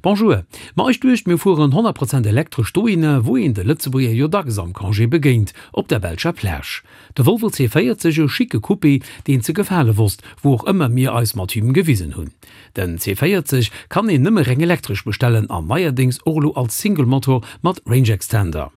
Bonjour, ma ech duecht mir fueren 100 Prozent elektresch dohinner wou een de Lëtzebuerger jo dacks am Congé begéint, op der belscher Plage. De Volvo C40, e schicke Coupé deen ze gefale wosst, wou och ëmmer mir eis mat him gewisen hunn. Den C40 kann een nëmme reng elektresch bestellen an neierdéngs och elo als Single Motor mat Range Extender.